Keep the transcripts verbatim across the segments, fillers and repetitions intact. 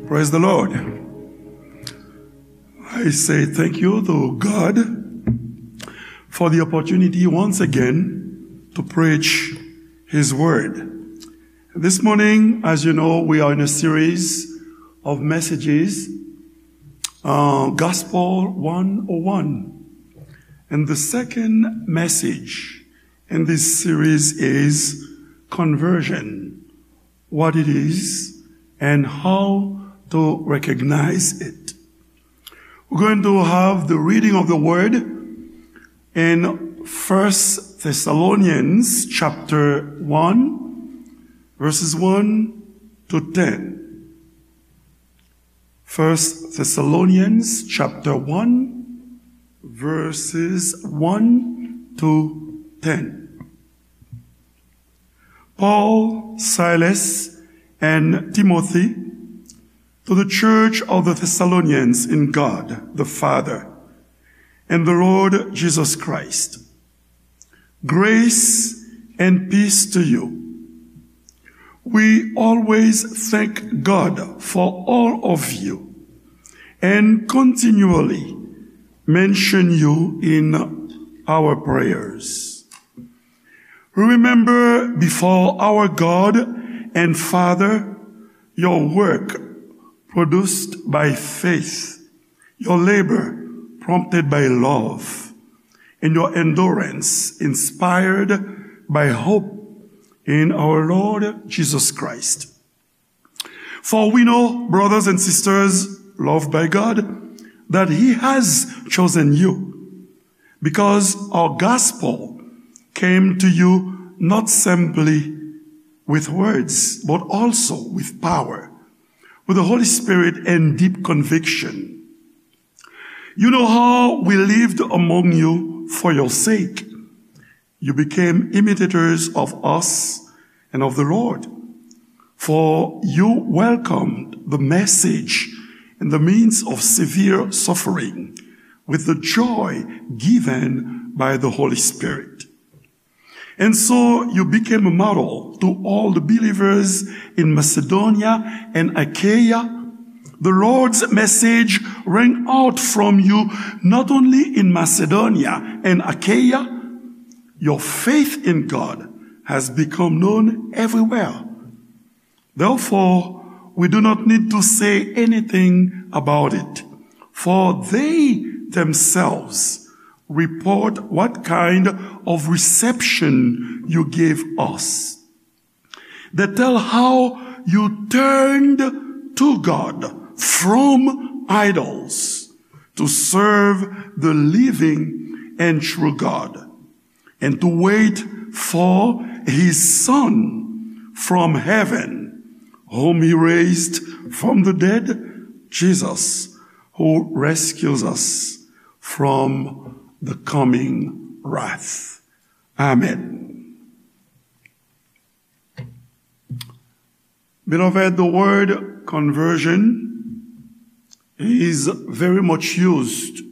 Praise the Lord. I say thank you to God for the opportunity once again to preach His Word. This morning, as you know, we are in a series of messages, uh, Gospel one oh one. And the second message in this series is conversion, what it is, and how to recognize it. We're going to have the reading of the word in First Thessalonians chapter one, verses one to ten. First Thessalonians chapter one, verses one to ten. Paul, Silas, and Timothy, to the church of the Thessalonians in God the Father and the Lord Jesus Christ. Grace and peace to you. We always thank God for all of you and continually mention you in our prayers. We remember before our God and Father your work produced by faith, your labor prompted by love, and your endurance inspired by hope in our Lord Jesus Christ. For we know, brothers and sisters loved by God, that He has chosen you, because our gospel came to you not simply with words, but also with power, with the Holy Spirit and deep conviction. You know how we lived among you for your sake. You became imitators of us and of the Lord, for you welcomed the message in the midst of severe suffering with the joy given by the Holy Spirit. And so you became a model to all the believers in Macedonia and Achaia. The Lord's message rang out from you not only in Macedonia and Achaia, your faith in God has become known everywhere. Therefore, we do not need to say anything about it, for they themselves report what kind of reception you gave us. They tell how you turned to God from idols to serve the living and true God, and to wait for his Son from heaven, whom he raised from the dead, Jesus, who rescues us from the coming wrath. Amen. Beloved, the word conversion is very much used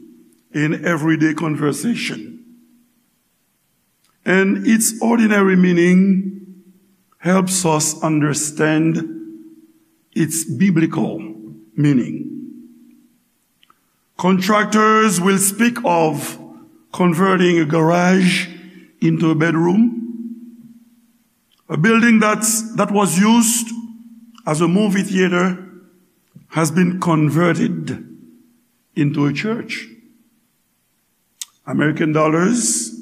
in everyday conversation. And its ordinary meaning helps us understand its biblical meaning. Contractors will speak of converting a garage into a bedroom. A building that's, that was used as a movie theater has been converted into a church. American dollars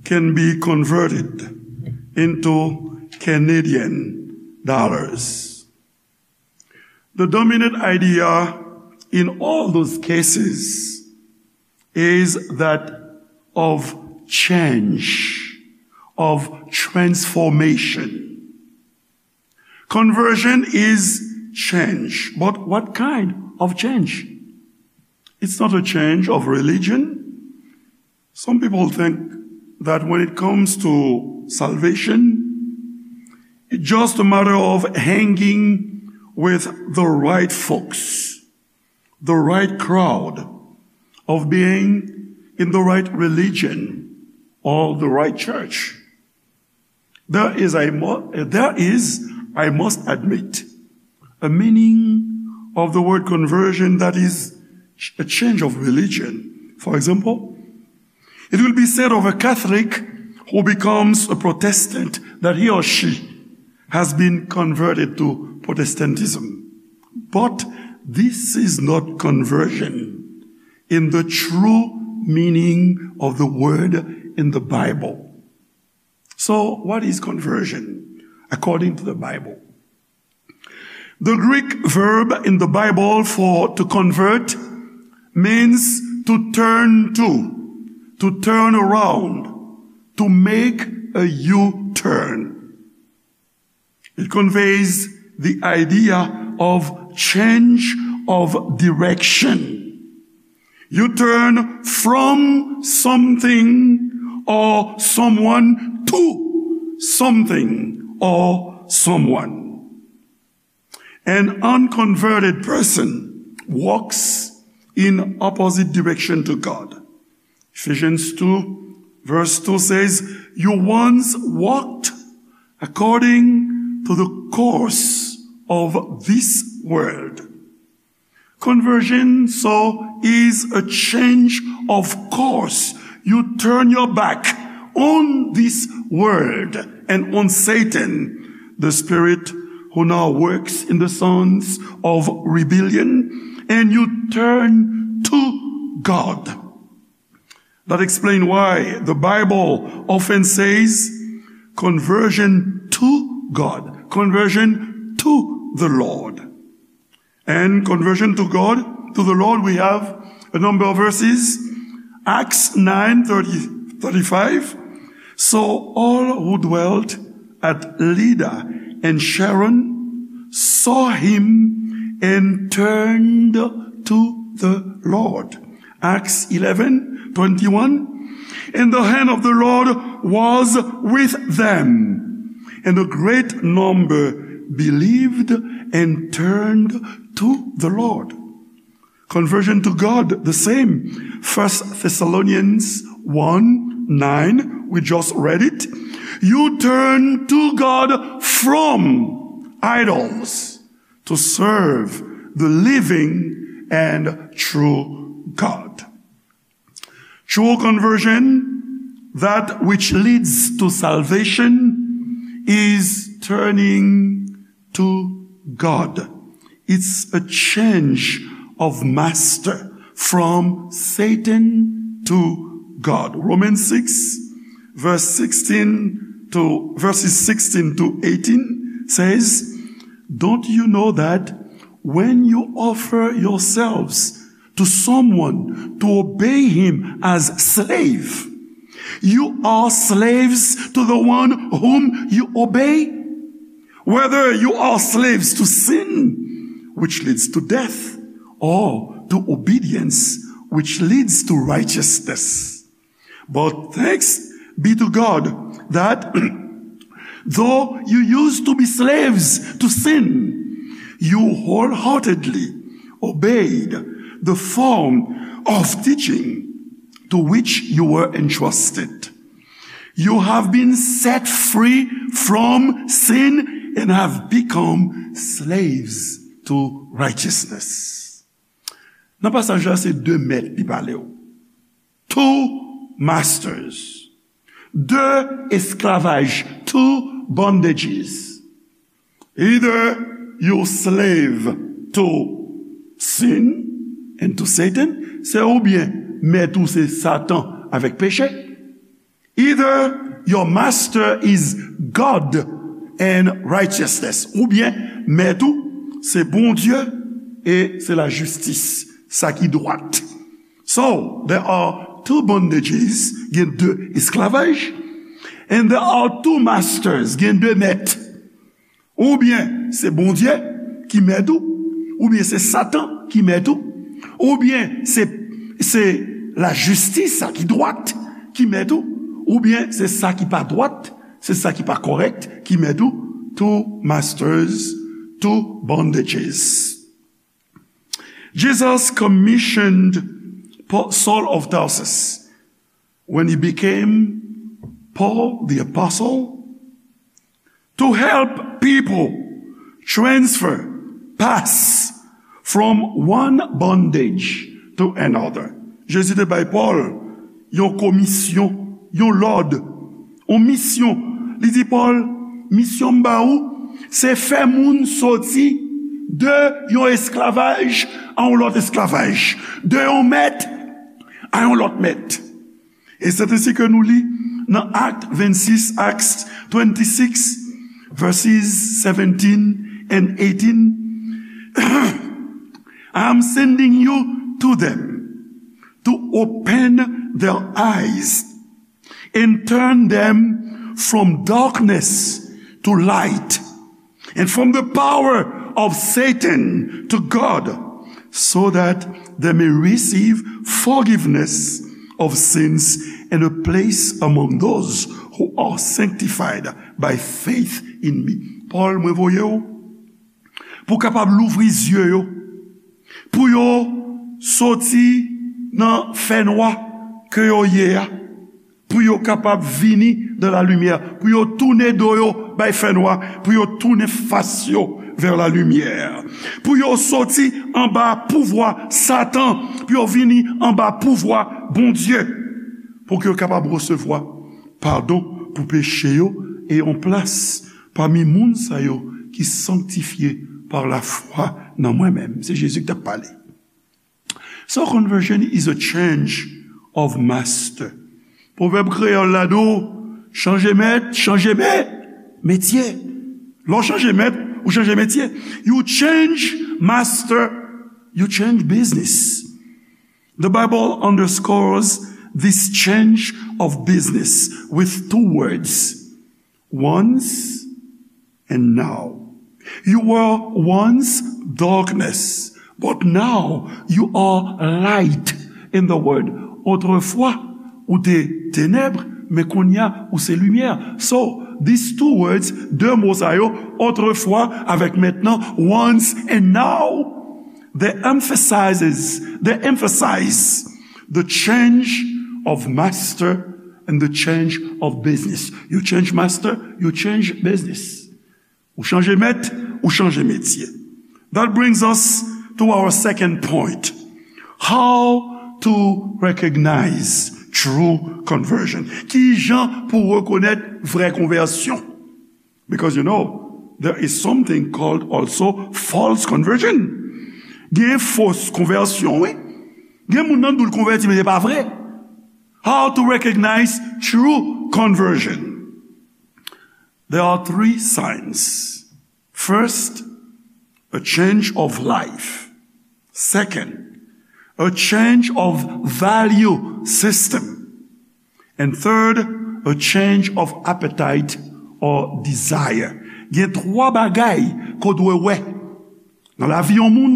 can be converted into Canadian dollars. The dominant idea in all those cases is that of change, of transformation. Conversion is change, but what kind of change? It's not a change of religion. Some people think that when it comes to salvation, it's just a matter of hanging with the right folks, the right crowd, of being in the right religion or the right church. There is, I mu-, there is, I must admit, a meaning of the word conversion, that is a change of religion. For example, it will be said of a Catholic who becomes a Protestant that he or she has been converted to Protestantism. But this is not conversion in the true meaning of the word in the Bible. So, what is conversion according to the Bible? The Greek verb in the Bible for to convert means to turn to, to turn around, to make a U-turn. It conveys the idea of change of direction. You turn from something or someone to something or someone. An unconverted person walks in opposite direction to God. Ephesians two verse two says, "You once walked according to the course of this world." Conversion, so, is a change of course. You turn your back on this world and on Satan, the spirit who now works in the sons of rebellion, and you turn to God. That explains why the Bible often says, "Conversion to God, conversion to the Lord." And conversion to God, to the Lord, we have a number of verses. Acts nine thirty, thirty-five. "So all who dwelt at Lydda and Sharon saw him and turned to the Lord." Acts eleven twenty-one. "And the hand of the Lord was with them, and a great number believed and turned to the Lord." Conversion to God, the same. First Thessalonians one nine, we just read it. "You turn to God from idols to serve the living and true God." True conversion, that which leads to salvation, is turning to God. It's a change of master from Satan to God. Romans six, verse sixteen to, verses sixteen to eighteen says, "Don't you know that when you offer yourselves to someone to obey him as slave, you are slaves to the one whom you obey? Whether you are slaves to sin, which leads to death, or to obedience, which leads to righteousness. But thanks be to God that though you used to be slaves to sin, you wholeheartedly obeyed the form of teaching to which you were entrusted. You have been set free from sin and have become slaves to righteousness." Nan pasaj la, se de mèt li pale w. Two masters. De esklavaj. Two bondages. Either you slave to sin and to Satan, se oubyen mèt ou se Satan avèk peche. Either your master is God and righteousness, oubyen mèt ou se Bondye e se lajistis, sa ki dwat. So, there are two bondages, gen de esklavaj, and there are two masters, gen de mèt. Oubyen se Bondye ki mèt ou, oubyen se Satan ki mèt ou, oubyen se, se lajistis sa ki dwat ki mèt ou, oubyen se sa ki pa dwat, se sa ki pa kòrèk ki mèt ou. Two masters, two bondages. Jesus commissioned Paul, Saul of Tarsus, when he became Paul the Apostle, to help people transfer, pass from one bondage to another. Jezi te bay Pòl yon komisyon, yon lòd, yon misyon. Li di Pòl, misyon m ba ou, se fè moun soti de yon esklavaj a yon lòt esklavaj, de yon mèt a yon lòt mèt. E se ensi ke nou li nan Act twenty-six, Acts twenty-six, verses seventeen and eighteen. I am sending you to them to open their eyes and turn them from darkness to light and from the power of Satan to God, so that they may receive forgiveness of sins and a place among those who are sanctified by faith in me. Pòl, mwen voye w pou w kapab louvri zye yo, pou yo soti nan fènwa ke yo ye a, pou yo kapab vini dan la limyè, pou yo tounen do yo bay fènwa, pou yo tounen fas yo vè la limyè, pou yo soti anba pouvwa Satan, pou yo vini anba pouvwa Bondye, pou ke yo kapab resevwa padon pou peche yo e yon plas pami moun sa yo ki sanktifye pa lafwa nan mwen menm. Se Jezi ki t ap pale. So conversion is a change of master. Pwovèb kreyòl la di w, chanje mèt, chanje mè, metye. Lè w chanje mèt, ou chanje metye. You change master, you change business. The Bible underscores this change of business with two words. Once and now. You were once darkness, but now you are light in the world. Otrefwa, ou te tenèb, men kounye a, ou se limyè. So, these two words, de mo sa yo, otrefwa avèk mentnan, once and now, they emphasizes, they emphasize the change of master and the change of business. You change master, you change business. Ou chanje mèt, ou chanje metye. That brings us to our second point. How to recognize true conversion. Ki jan pou rekonèt vrè konvèsyon? Because, you know, there is something called also false conversion. Gen fos konvèsyon, wi. Gen moun nan nou konvèti, men se pa vre. How to recognize true conversion? There are three signs. First, a change of life. Second, a change of value system. And third, a change of appetite or desire. Gen twa bagay ke w dwe wè nan lavi yon moun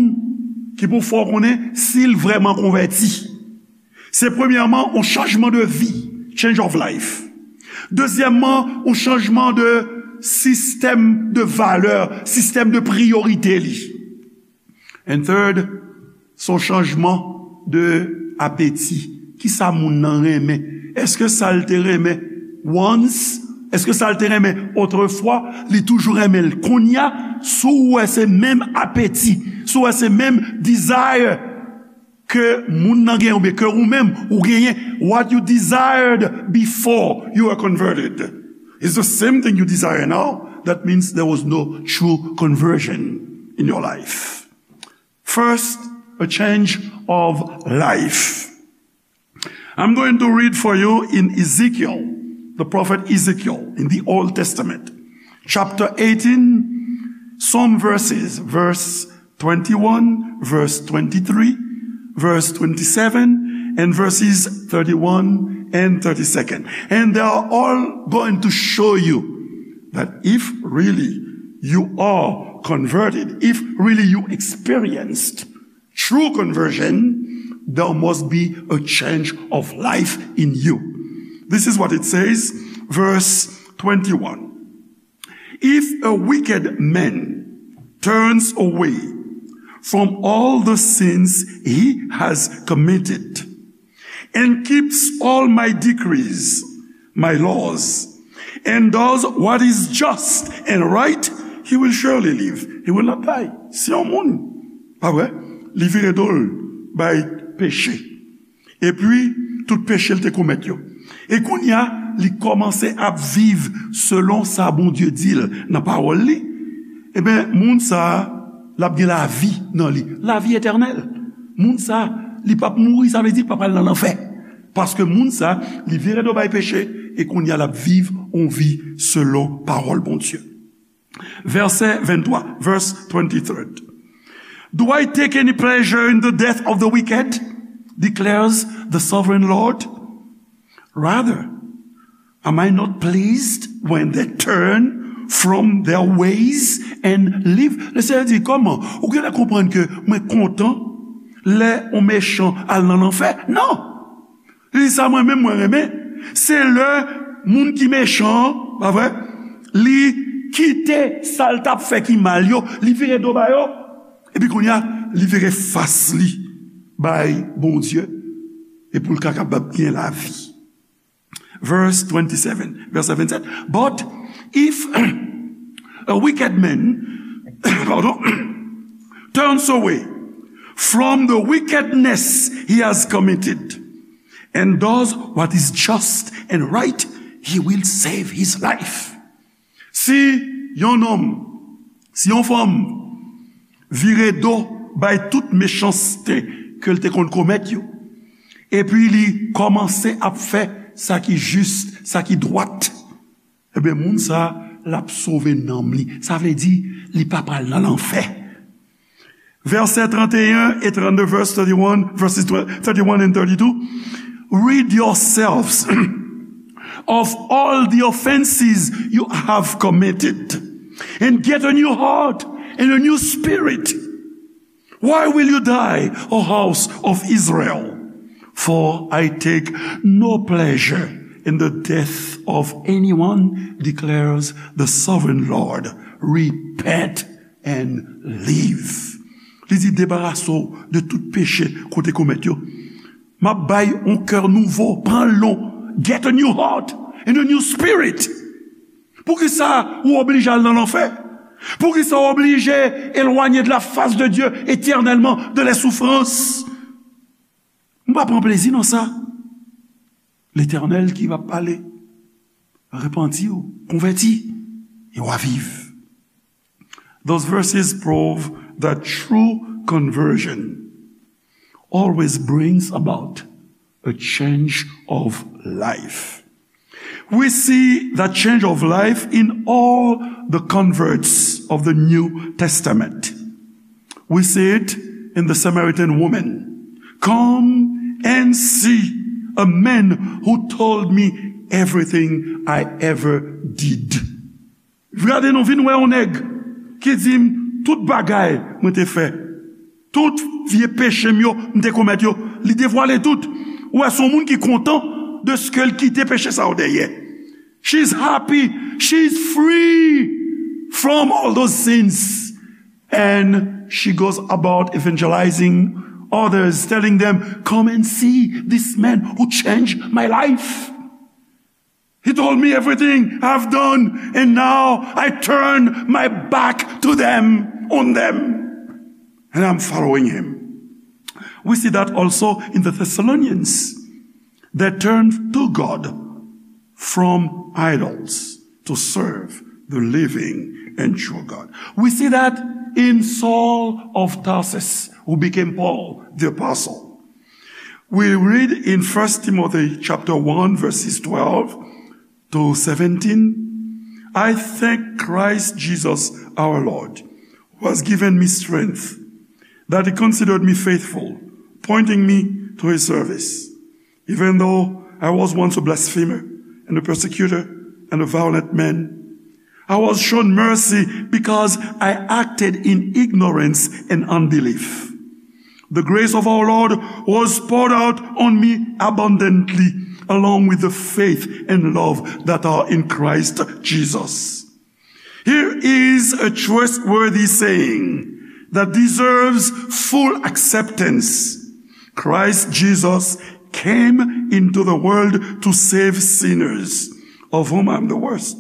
ki pou fè w konnen si l vrèman konvèti. Se premyèman, yon chanjman de vi, change of life. Dezyèmman, yon chanjman de sistèm de valè, sistèm de priyorite li. And third, se yon chanjman de apeti. Kisa moun nan renmen? Èske sa l te renmen once? Èske sa l te renmen otrefwa, li toujou renmen l kounye a? Si w wè se menm apeti, si w wè se menm desire ke moun nan genyen oubyen ke ou menm ou genyen, what you desired before you were converted is the same thing you desire now. That means there was no true conversion in your life. First, a change of life. I'm going to read for you in Ezekiel, the prophet Ezekiel, in the Old Testament, chapter eighteen, some verses, verse twenty-one, verse twenty-three, verse twenty-seven, and verses thirty-one and thirty-second. And they are all going to show you that if really you are converted, if really you experienced true conversion, there must be a change of life in you. This is what it says, verse twenty-one. If a wicked man turns away from all the sins he has committed and keeps all my decrees, my laws, and does what is just and right, he will surely live. He will not die. Si yon moun, pa vre? Li vire do l bay peche. Epi, tout peche l te komèt yo. E kounye a, li kòmanse ap viv selon sa Bondye di l nan pawòl li. Ebyen, moun sa a, l ap gen lavi nan li. Lavi etènèl. Moun sa a, li p ap mouri, sa vle di l p ap al nan lanfè. Paske moun sa a, li vire do bay peche, e kounye a, l ap viv yon vi selon pawòl Bondye. Vèsè venntwa, verse twenty-three. Do I take any pleasure in the death of the wicked? Declares the sovereign Lord. Rather, am I not pleased when they turn from their ways and live? Le Seyè di, kòman? Ou genlè konprann ke mwen kontan lè yon mechan al nan lanfè? Non! Li di sa mwen menm mwen renmen. Se lè moun ki mechan an, pa vre, li kite sa l t ap fè ki mal yo, li vire do ba yo. Epi kounye a, li vire fas li bay Bondye. E pou l ka kapab gen lavi. Verse twenty-seven, vèsè vennsèt. But if a wicked man, pardon, turns away from the wickedness he has committed and does what is just and right, he will save his life. Si yon nonm, si yon fanm vire do bay tout mechanste ke l te konn komèt yo, epi li kòmanse ap fè sa ki jis, sa ki dwat, ebyen, moun sa a, l ap sove nanm li. Sa vle di, li p ap al nan lanfè. Vèsè trannteyen e trannde, verse thirty-one, verses thirty-one and thirty-two. Rid yourselves of all the offenses you have committed, and get a new heart and a new spirit. Why will you die, O house of Israel? For I take no pleasure in the death of anyone, declares the sovereign Lord. Repent and live. Li di, debarase w de tout peche ke w te komèt yo. M ap bay yon kè nouvo, pran l non. Get a new heart and a new spirit. Poukisa ou oblije al nan lanfè? Poukisa ou oblije éloigné de la face de Dieu éternellement, de les souffrances? M pa pran plezi nan sa. Letènèl ki va pale. Repanti w, konvèti, e w a viv. Those verses prove that true conversion always brings about a change of life. We see that change of life in all the converts of the New Testament. We see it in the Samaritan woman. Come and see a man who told me everything I ever did. Gade non, vin wè yon nèg ki di m tout bagay mwen te fè. Tout vye peche m yo, m te komèt yo, li devwale tout. Ou wè, se yon moun ki kontan de ce que l kite peche sa yo dèyè. She's happy, she's free from all those sins. And she goes about evangelizing others, telling them, come and see this man who changed my life. He told me everything I've done, and now I turn my back to them, on them, and I'm following him. We see that also in the Thessalonians. They turned to God from idols to serve the living and true God. We see that in Saul of Tarsus, who became Paul the apostle. We read in First Timothy chapter one, verses twelve to seventeen, I thank Christ Jesus our Lord, who has given me strength, that he considered me faithful, appointing me to his service. Even though I was once a blasphemer and a persecutor and a violent man, I was shown mercy because I acted in ignorance and unbelief. The grace of our Lord was poured out on me abundantly, along with the faith and love that are in Christ Jesus. Here is a trustworthy saying that deserves full acceptance. Christ Jesus came into the world to save sinners, of whom I'm the worst.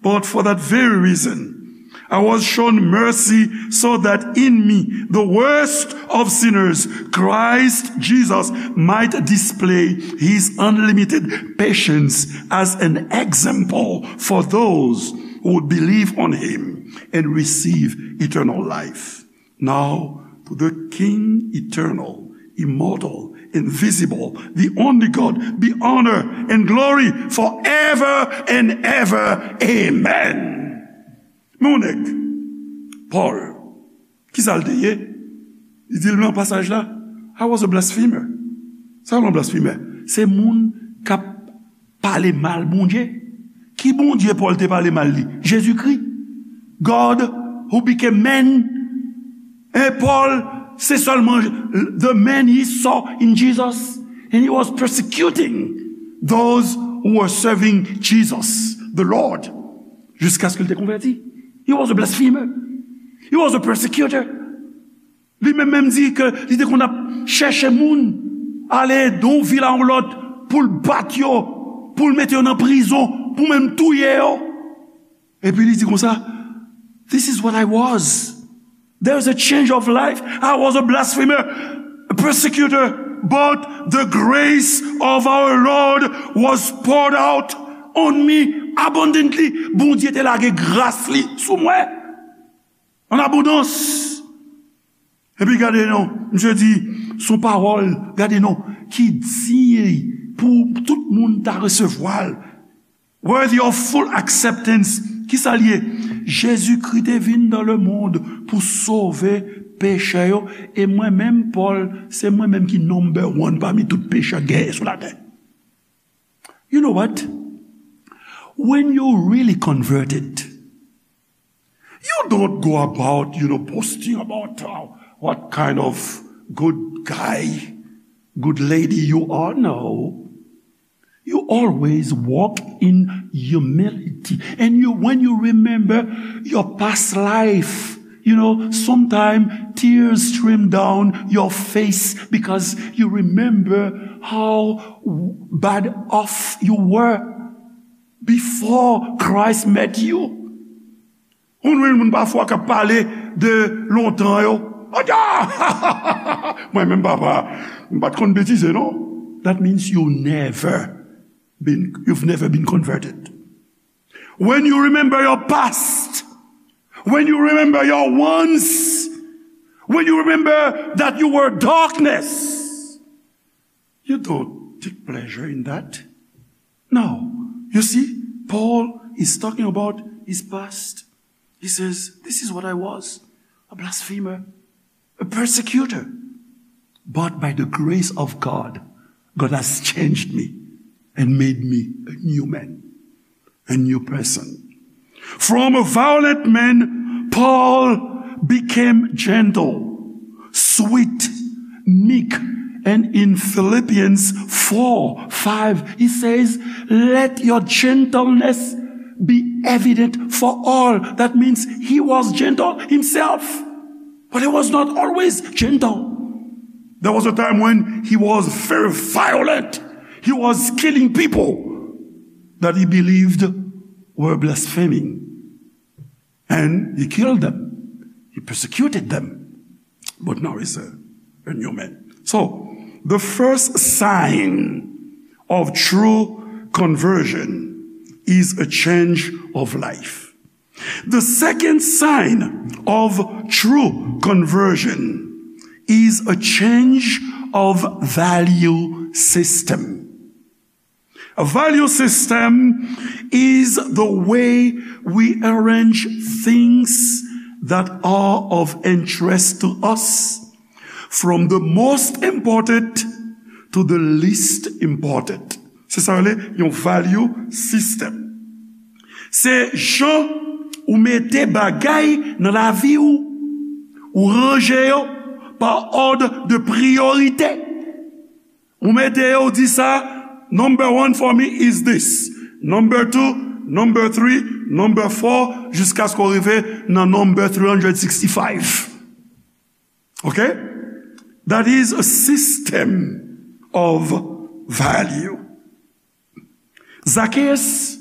But for that very reason, I was shown mercy so that in me, the worst of sinners, Christ Jesus might display his unlimited patience as an example for those who would believe on him and receive eternal life. Now, to the King eternal, immortal, invisible, the only God, be honor and glory forever and ever. Amen. Men yon nèg, Paul, kisa l te ye? Li di l nan pasaj la, I was a blasphemer. Sa yon blasfemè? Se moun k ap pale mal Bondye. Ki Bondye Paul te pale mal li? Jezikri. God who became man. E Paul, se sèlman the man he saw in Jesus. And he was persecuting those who were serving Jesus, the Lord. Jiskaske l te konvèti. He was a blasphemer. He was a persecutor. Li menm menm di ke li te konn ap chèche moun, ale de yon vil a yon lòt, pou l bat yo, pou l mete yo nan prizon, pou menm touye yo. Epi li di konsa, this is what I was. There is a change of life. I was a blasphemer, a persecutor, but the grace of our Lord was poured out on me abundantly. Bondye te lage gras li sou mwen an abondans. Epi gade non, misye di, son pawòl, gade non, ki diy pou tout moun ta resevwa l. Worthy of full acceptance. Kisa l ye? Jezikri te vin dans le monde pou sove pechè yo. E mwen menm, Paul, se mwen menm ki number one pami tout pechè genyen sou latè. You know what? When you really converted, you don't go about, you know, posting about how, what kind of good guy, good lady you are. No. You always walk in humility. And you, when you remember your past life, you know, sometimes tears stream down your face because you remember how bad off you were before Christ met you. Ou jwenn moun pafwa k ap pale de lontan yo. Odya! Mwen menm papa, m pa t konn betize non. That means you never been, you've never been converted. When you remember your past, when you remember your once, when you remember that you were darkness, you don't take pleasure in that. No. You see, Paul is talking about his past. He says, this is what I was, a blasphemer, a persecutor. But by the grace of God, God has changed me and made me a new man, a new person. From a violent man, Paul became gentle, sweet, meek, and in Philippians four five, he says, let your gentleness be evident for all. That means he was gentle himself, but he was not always gentle. There was a time when he was very violent. He was killing people that he believed were blaspheming. And he killed them. He persecuted them. But now he's a, a new man. So, the first sign of true conversion is a change of life. The second sign of true conversion is a change of value system. A value system is the way we arrange things that are of interest to us, from the most important to the least important. Se sa yo rele yon value system. Se jan ou mete bagay nan lavi ou, ou ranje yo pa òd de priyorite. Ou mete yo, ou di sa, number one for me is this. Number two, number three, number four, jiskaske w rive nan number three hundred sixty-five. Ok? That is a system of value. Zacchaeus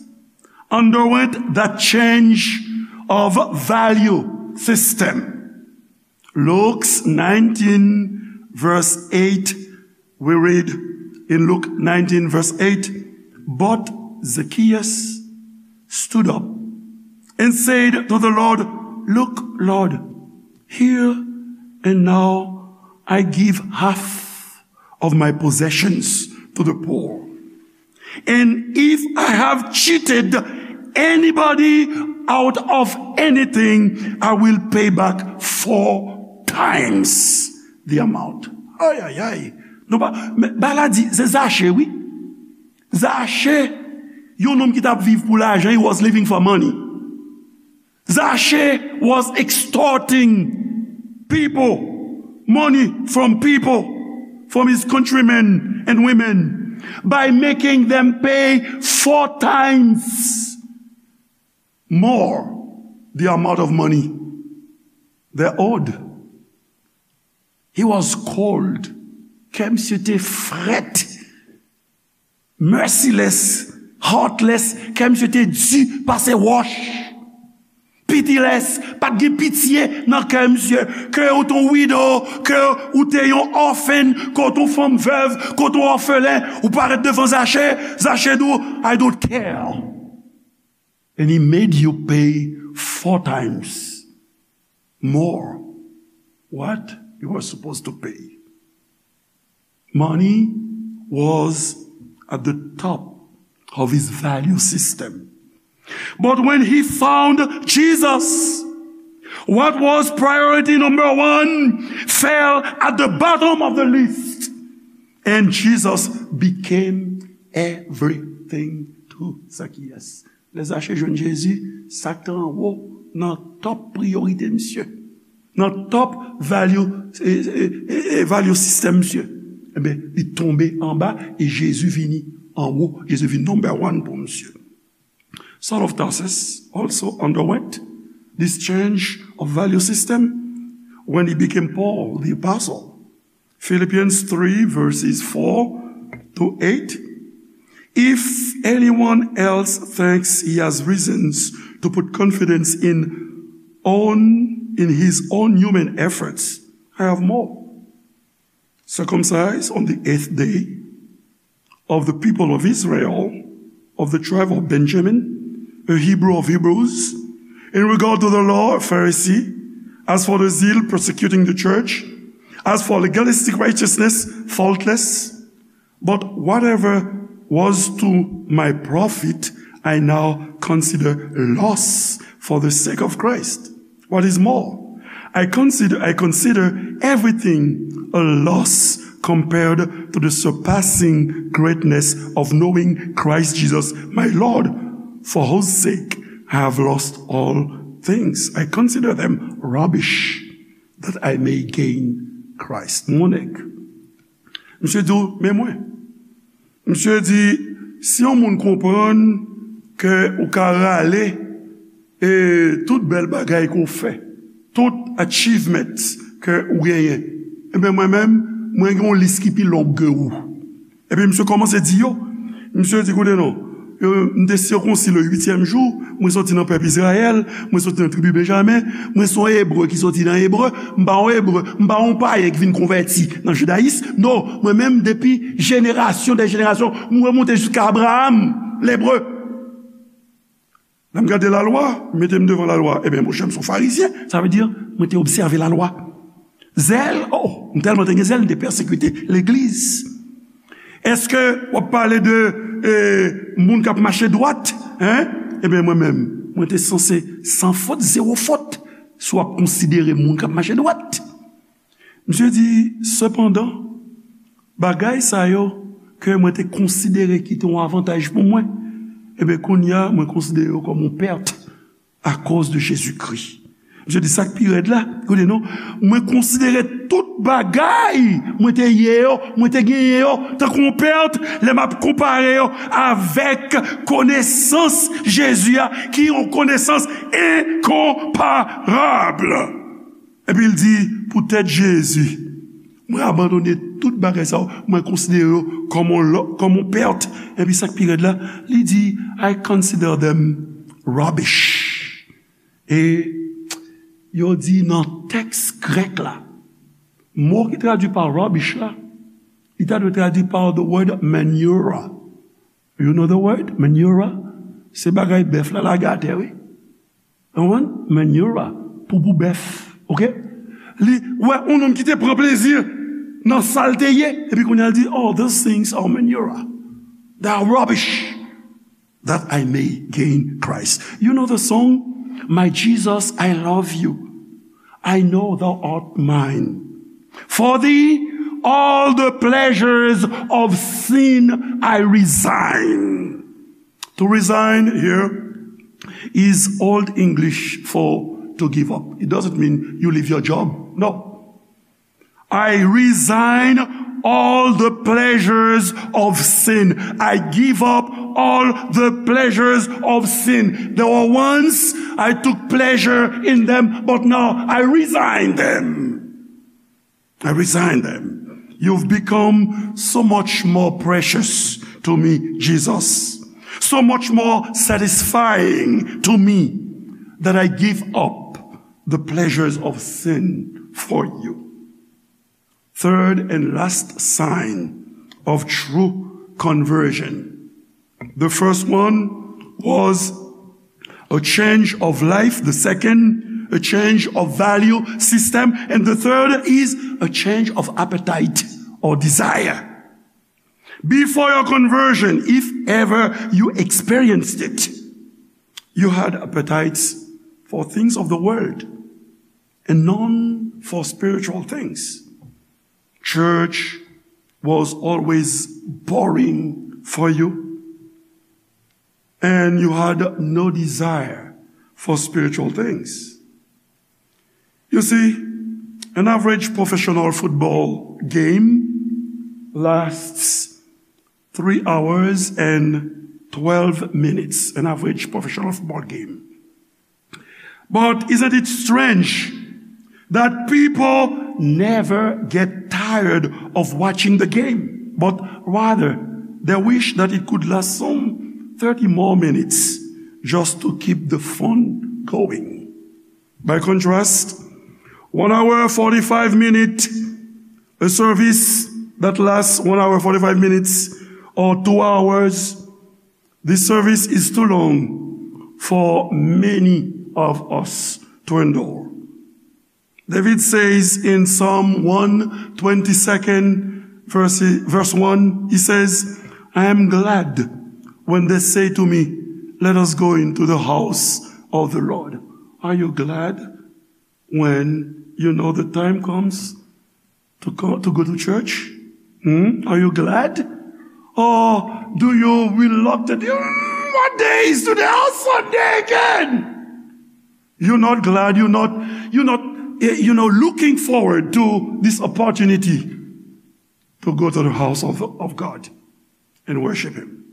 underwent that change of value system. Luke nineteen, verse eight, we read in Luke nineteen, verse eight, "But Zacchaeus stood up and said to the Lord, 'Look, Lord, here and now I give half of my possessions to the poor. And if I have cheated anybody out of anything, I will pay back four times the amount.'" Ay, ay, ay. Nou pa, men, ba la di, se Zache, wi. Zache, yon nonm ki t ap viv pou lajan, he was living for money. Zache was extorting people, money from people, from his countrymen and women, by making them pay four times more the amount of money they owed. He was cold. Kè misye te frèt. Merciless, heartless, kè misye te di pase wòch. Pitiless, pa t gen pitye nan kè misye. Ke ou t on widow, ke ou te yon orphan, ke ou t on fanm vèv, ke ou t on òfelen, ou parèt devan Zache, Zache di w, "I don't care." And he made you pay four times more what you were supposed to pay. Money was at the top of his value system. But when he found Jesus, what was priority number one fell at the bottom of the list. And Jesus became everything to Zacchaeus. Lè Zache jwenn Jezi, sa k te anwo nan top priyorite misye, nan top value, e, e, e, e, value system misye, ebyen, li tonbe anba e Jezi vini anwo. Jezi vin number one pou misye. Saul of Tarsus also underwent this change of value system when he became Paul the Apostle. Philippians three, verses four to eight. If anyone else thinks he has reasons to put confidence in own, in his own human efforts, I have more. Circumcised on the eighth day, of the people of Israel, of the tribe of Benjamin, a Hebrew of Hebrews, in regard to the law, a Pharisee, as for the zeal persecuting the church, as for legalistic righteousness, faultless. But whatever was to my profit, I now consider loss for the sake of Christ. What is more, I consider, I consider everything a loss compared to the surpassing greatness of knowing Christ Jesus my Lord, for whose sake I have lost all things. I consider them rubbish that I may gain Christ. Mon nèg, misye di w, men mwen. Misye di, si yon moun konprann ke ou ka rale e tout bèl bagay ke w fè, tout achievement ke ou genyen, ebyen, mwen menm, mwen gen yon lis ki pi long ke ou. Epi misye kòmanse di yo, misye di, koute non, yo, m te sikonsi le huitième jour, mwen soti nan pèp Izrayèl, mwen soti nan tribi Benjamen, mwen se yon Ebre ki soti nan Ebre, m pa yon Ebre, m pa yon payen ki vin konvèti nan jidayis. Non, mwen menm, depi jenerasyon dè jenerasyon, m remonte jiska Abraram, Lebre. Lè m gade lalwa, m mete m devan lalwa, ebyen, monchè, m se yon farizyen, sa vle di, mwen te obsève lalwa. Zèl, oh, m tèlman te gen zèl, m te pèsekite legliz. Èske w ap pale de, eh, moun k ap mache dwat, en? Ebyen, mwen menm, mwen te sanse san fot, zewo fot, si w ap konsidere moun k ap mache dwat. Misye di, sepandan, bagay sa yo ke mwen te konsidere ki te yon avantaj pou mwen, ebyen, kounye a, mwen konsidere yo kòm yon pèt akoz de Jezikri. Misye di, sa k pi rèd la, koute non, mwen konsidere tout bagay mwen te ye yo, mwen te genyen yo, tankou yon pèt, lè m ap konpare yo avèk konesans Jezi a, ki yon konesans enkonparab. Epi l di, poutèt Jezi, mwen abandone tout bagay sa yo, mwen konsidere yo kòm yon lò-, kòm yon pèt. Epi sa k pi rèd la, li di, I consider them rubbish. E yo di nan tèks grèk la, mo ki tradui pa rubbish la, li ta dwe tradui pa the word manura. You know the word? Manura. Se bagay bèf la lage atè, wi. Ou konprann? Manura. Poupou bèf. Oke? Li wè yon nonm ki te pran plezi nan sa l te ye. Epi kounye a l di, "Oh, those things are manura. They are rubbish. That I may gain Christ." You know the song? "My Jesus, I love you. I know thou art mine. For thee, all the pleasures of sin I resign." To resign here is Old English for to give up. It doesn't mean you leave your job. No. "I resign all the pleasures of sin. I give up all the pleasures of sin. There were once I took pleasure in them, but now I resign them. I resign them. You've become so much more precious to me, Jesus. So much more satisfying to me that I give up the pleasures of sin for you." Third and last sign of true conversion. The first one was a change of life. The second, a change of value system. And the third is a change of appetite or desire. Before your conversion, if ever you experienced it, you had appetites for things of the world and none for spiritual things. Church was always boring for you, and you had no desire for spiritual things. You see, an average professional football game lasts three hours and twelve minutes. An average professional football game. But isn't it strange that people never get tired of watching the game, but rather they wish that it could last some thirty more minutes just to keep the fun going? By contrast, one hour, forty-five minutes, a service that lasts one hour, forty-five minutes, or two hours, this service is too long for many of us to endure. David says in Psalm one twenty-second, verse, verse one, he says, "I am glad when they say to me, 'Let us go into the house of the Lord.'" Are you glad when you know the time comes to go, to go to church? Hmm? Are you glad? Or do you reluctantly, "Mm, what day is today? Oh, Sunday again." You're not glad. You're not, you're not, eh, you know, looking forward to this opportunity to go to the house of, of God and worship Him.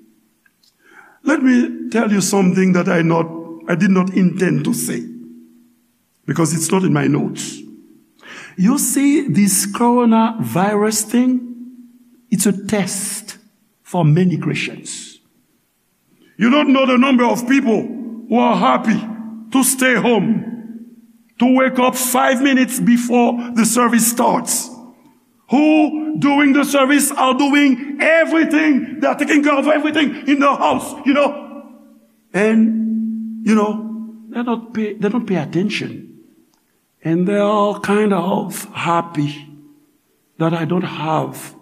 Let me tell you something that I not, I did not intend to say, because it's not in my notes. You see, this coronavirus thing, it's a test for many Christians. You don't know the number of people who are happy to stay home, to wake up five minutes before the service starts, who during the service are doing everything, they are taking care of everything in the house, you know. And, you know, they don't pay, they don't pay attention. And they are kind of happy that I don't have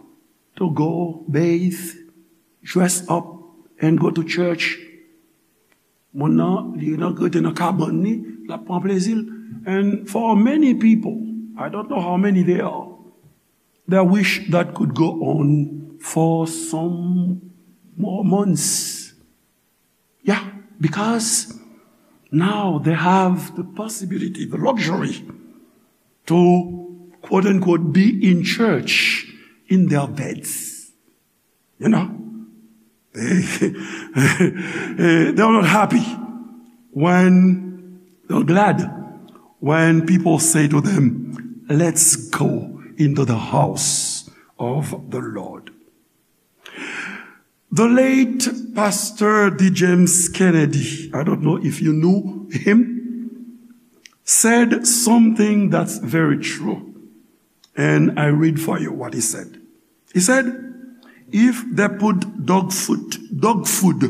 to go bathe, dress up, and go to church. Moun nan, li nan, rete nan kabann li, l ap pran plezi l. And for many people, I don't know how many they are, they wish that could go on for some more months. Yeah, because now they have the possibility, the luxury to, quote unquote, be in church in their beds. You know? They, they are not happy when, they're glad when people say to them, "Let's go into the house of the Lord." The late Pastor D. James Kennedy, I don't know if you knew him, said something that's very true. And I read for you what he said. He said, "If they put dog food, dog food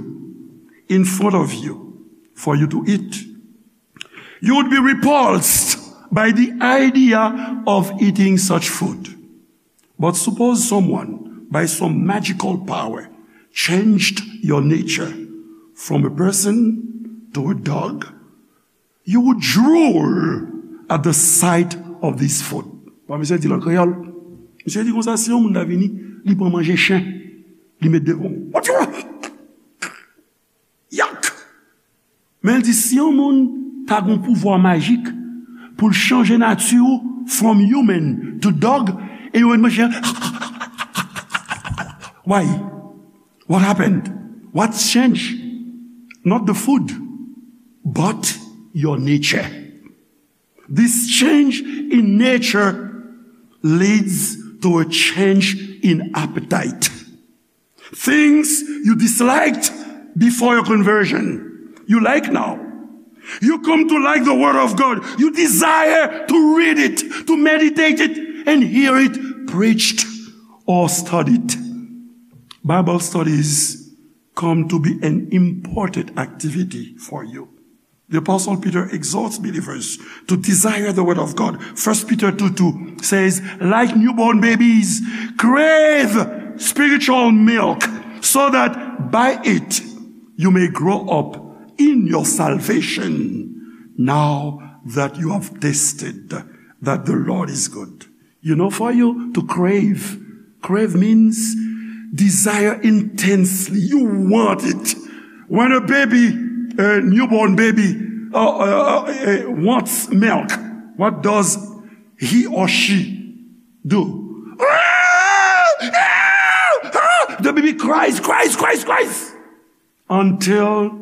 in front of you for you to eat, you would be repulsed by the idea of eating such food. But suppose someone, by some magical power, changed your nature from a person to a dog, you would drool at the sight of this food." Bon, misye di l an kreyòl. Misye di konsa, si yon moun ta vini, li pran manje chen, li met devan w. What you want? Yak! Men l di, si yon moun ta gon pouvwa majik pou l chanje nati w from human to dog, e yo met manje, why? What happened? What's changed? Not the food, but your nature. This change in nature leads to a change in appetite. Things you disliked before your conversion, you like now. You come to like the word of God. You desire to read it, to meditate it, and hear it preached or studied. Bible studies come to be an important activity for you. The Apostle Peter exhorts believers to desire the word of God. First Peter two two says, "Like newborn babies, crave spiritual milk, so that by it you may grow up in your salvation, now that you have tasted that the Lord is good." You know, for you to crave, crave means desire intensely. You want it. When a baby, a newborn baby, uh, uh, uh, uh, wants milk, what does he or she do? The baby cries, cries, cries, cries, until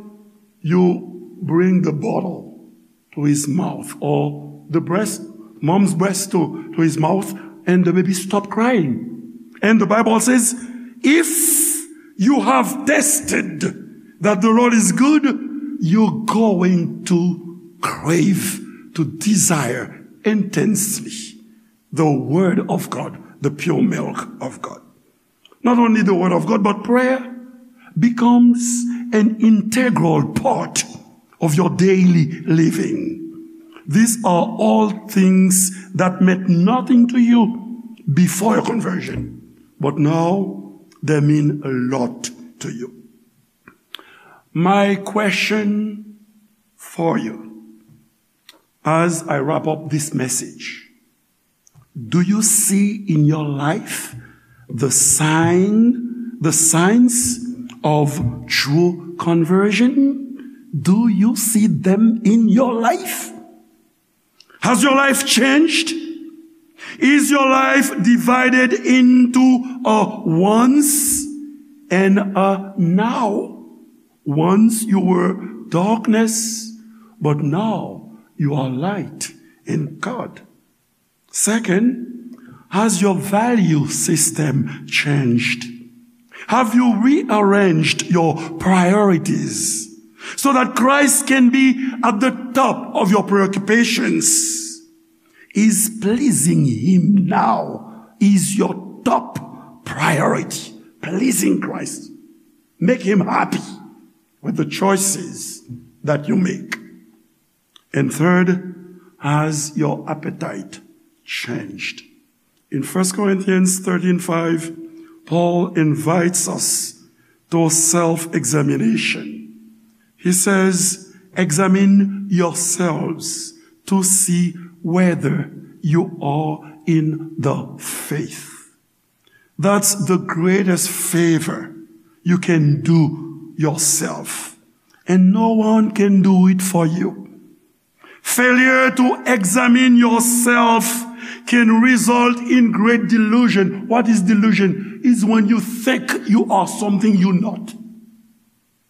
you bring the bottle to his mouth, or the breast, mom's breast to, to his mouth, and the baby stop crying. And the Bible says, if you have tested that the Lord is good, you're going to crave, to desire intensely the word of God, the pure milk of God. Not only the word of God, but prayer becomes an integral part of your daily living. These are all things that meant nothing to you before your conversion, but now they mean a lot to you. My question for you as I wrap up this message: do you see in your life the sign, the signs of true conversion? Do you see them in your life? Has your life changed? Is your life divided into a once and a now? Once you were darkness, but now you are light in God. Second, has your value system changed? Have you rearranged your priorities so that Christ can be at the top of your preoccupations? Is pleasing Him now is your top priority? Pleasing Christ. Make Him happy with the choices that you make. And third, has your appetite changed? In First Corinthians thirteen five, Paul invites us to self-examination. He says, "Examine yourselves to see whether you are in the faith." That's the greatest favor you can do yourself. And no one can do it for you. Failure to examine yourself can result in great delusion. What is delusion? Is when you think you are something you're not.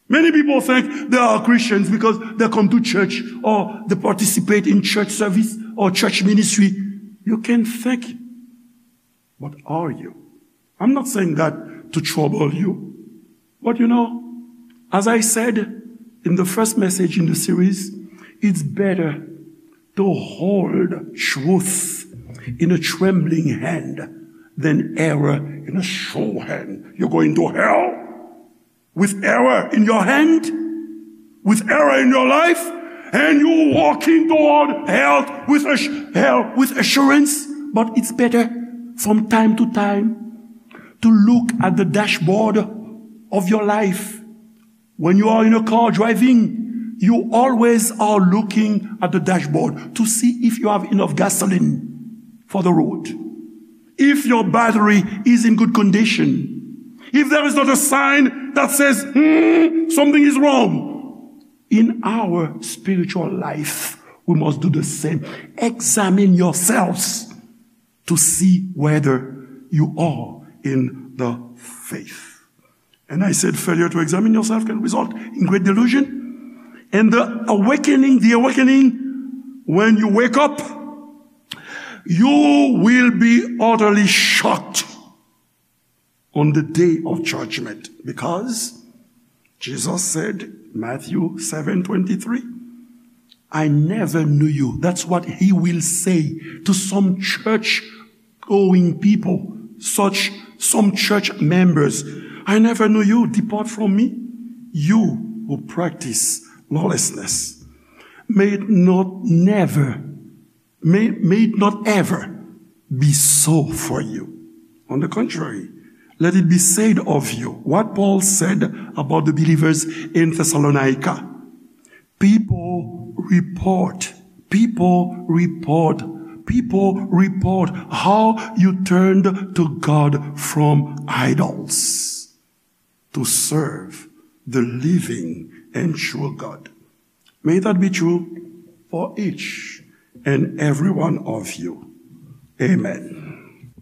Many people think they are Christians because they come to church or they participate in church service or church ministry. You can think, but are you? I'm not saying that to trouble you. But you know, as I said in the first message in the series, it's better to hold truth in a trembling hand than error in a sure hand. You're going to hell with error in your hand, with error in your life, and you walking toward hell with ass-, hell with assurance. But it's better from time to time to look at the dashboard of your life. When you are in a car driving, you always are looking at the dashboard to see if you have enough gasoline for the road, if your battery is in good condition, if there is not a sign that says, "Hmm, something is wrong." In our spiritual life, we must do the same. Examine yourselves to see whether you are in the faith. And I said, failure to examine yourself can result in great delusion. And the awakening, the awakening, when you wake up, you will be utterly shocked on the day of judgment, because Jesus said, Matthew seven twenty-three, "I never knew you." That's what he will say to some church going people, such some church members. "I never knew you. Depart from me, you who practice lawlessness." May it not never, may, may it not ever be so for you. On the contrary, let it be said of you what Paul said about the believers in Thessalonica. People report, people report, people report how you turned to God from idols to serve the living and true God. May that be true for each and every one of you. Amen.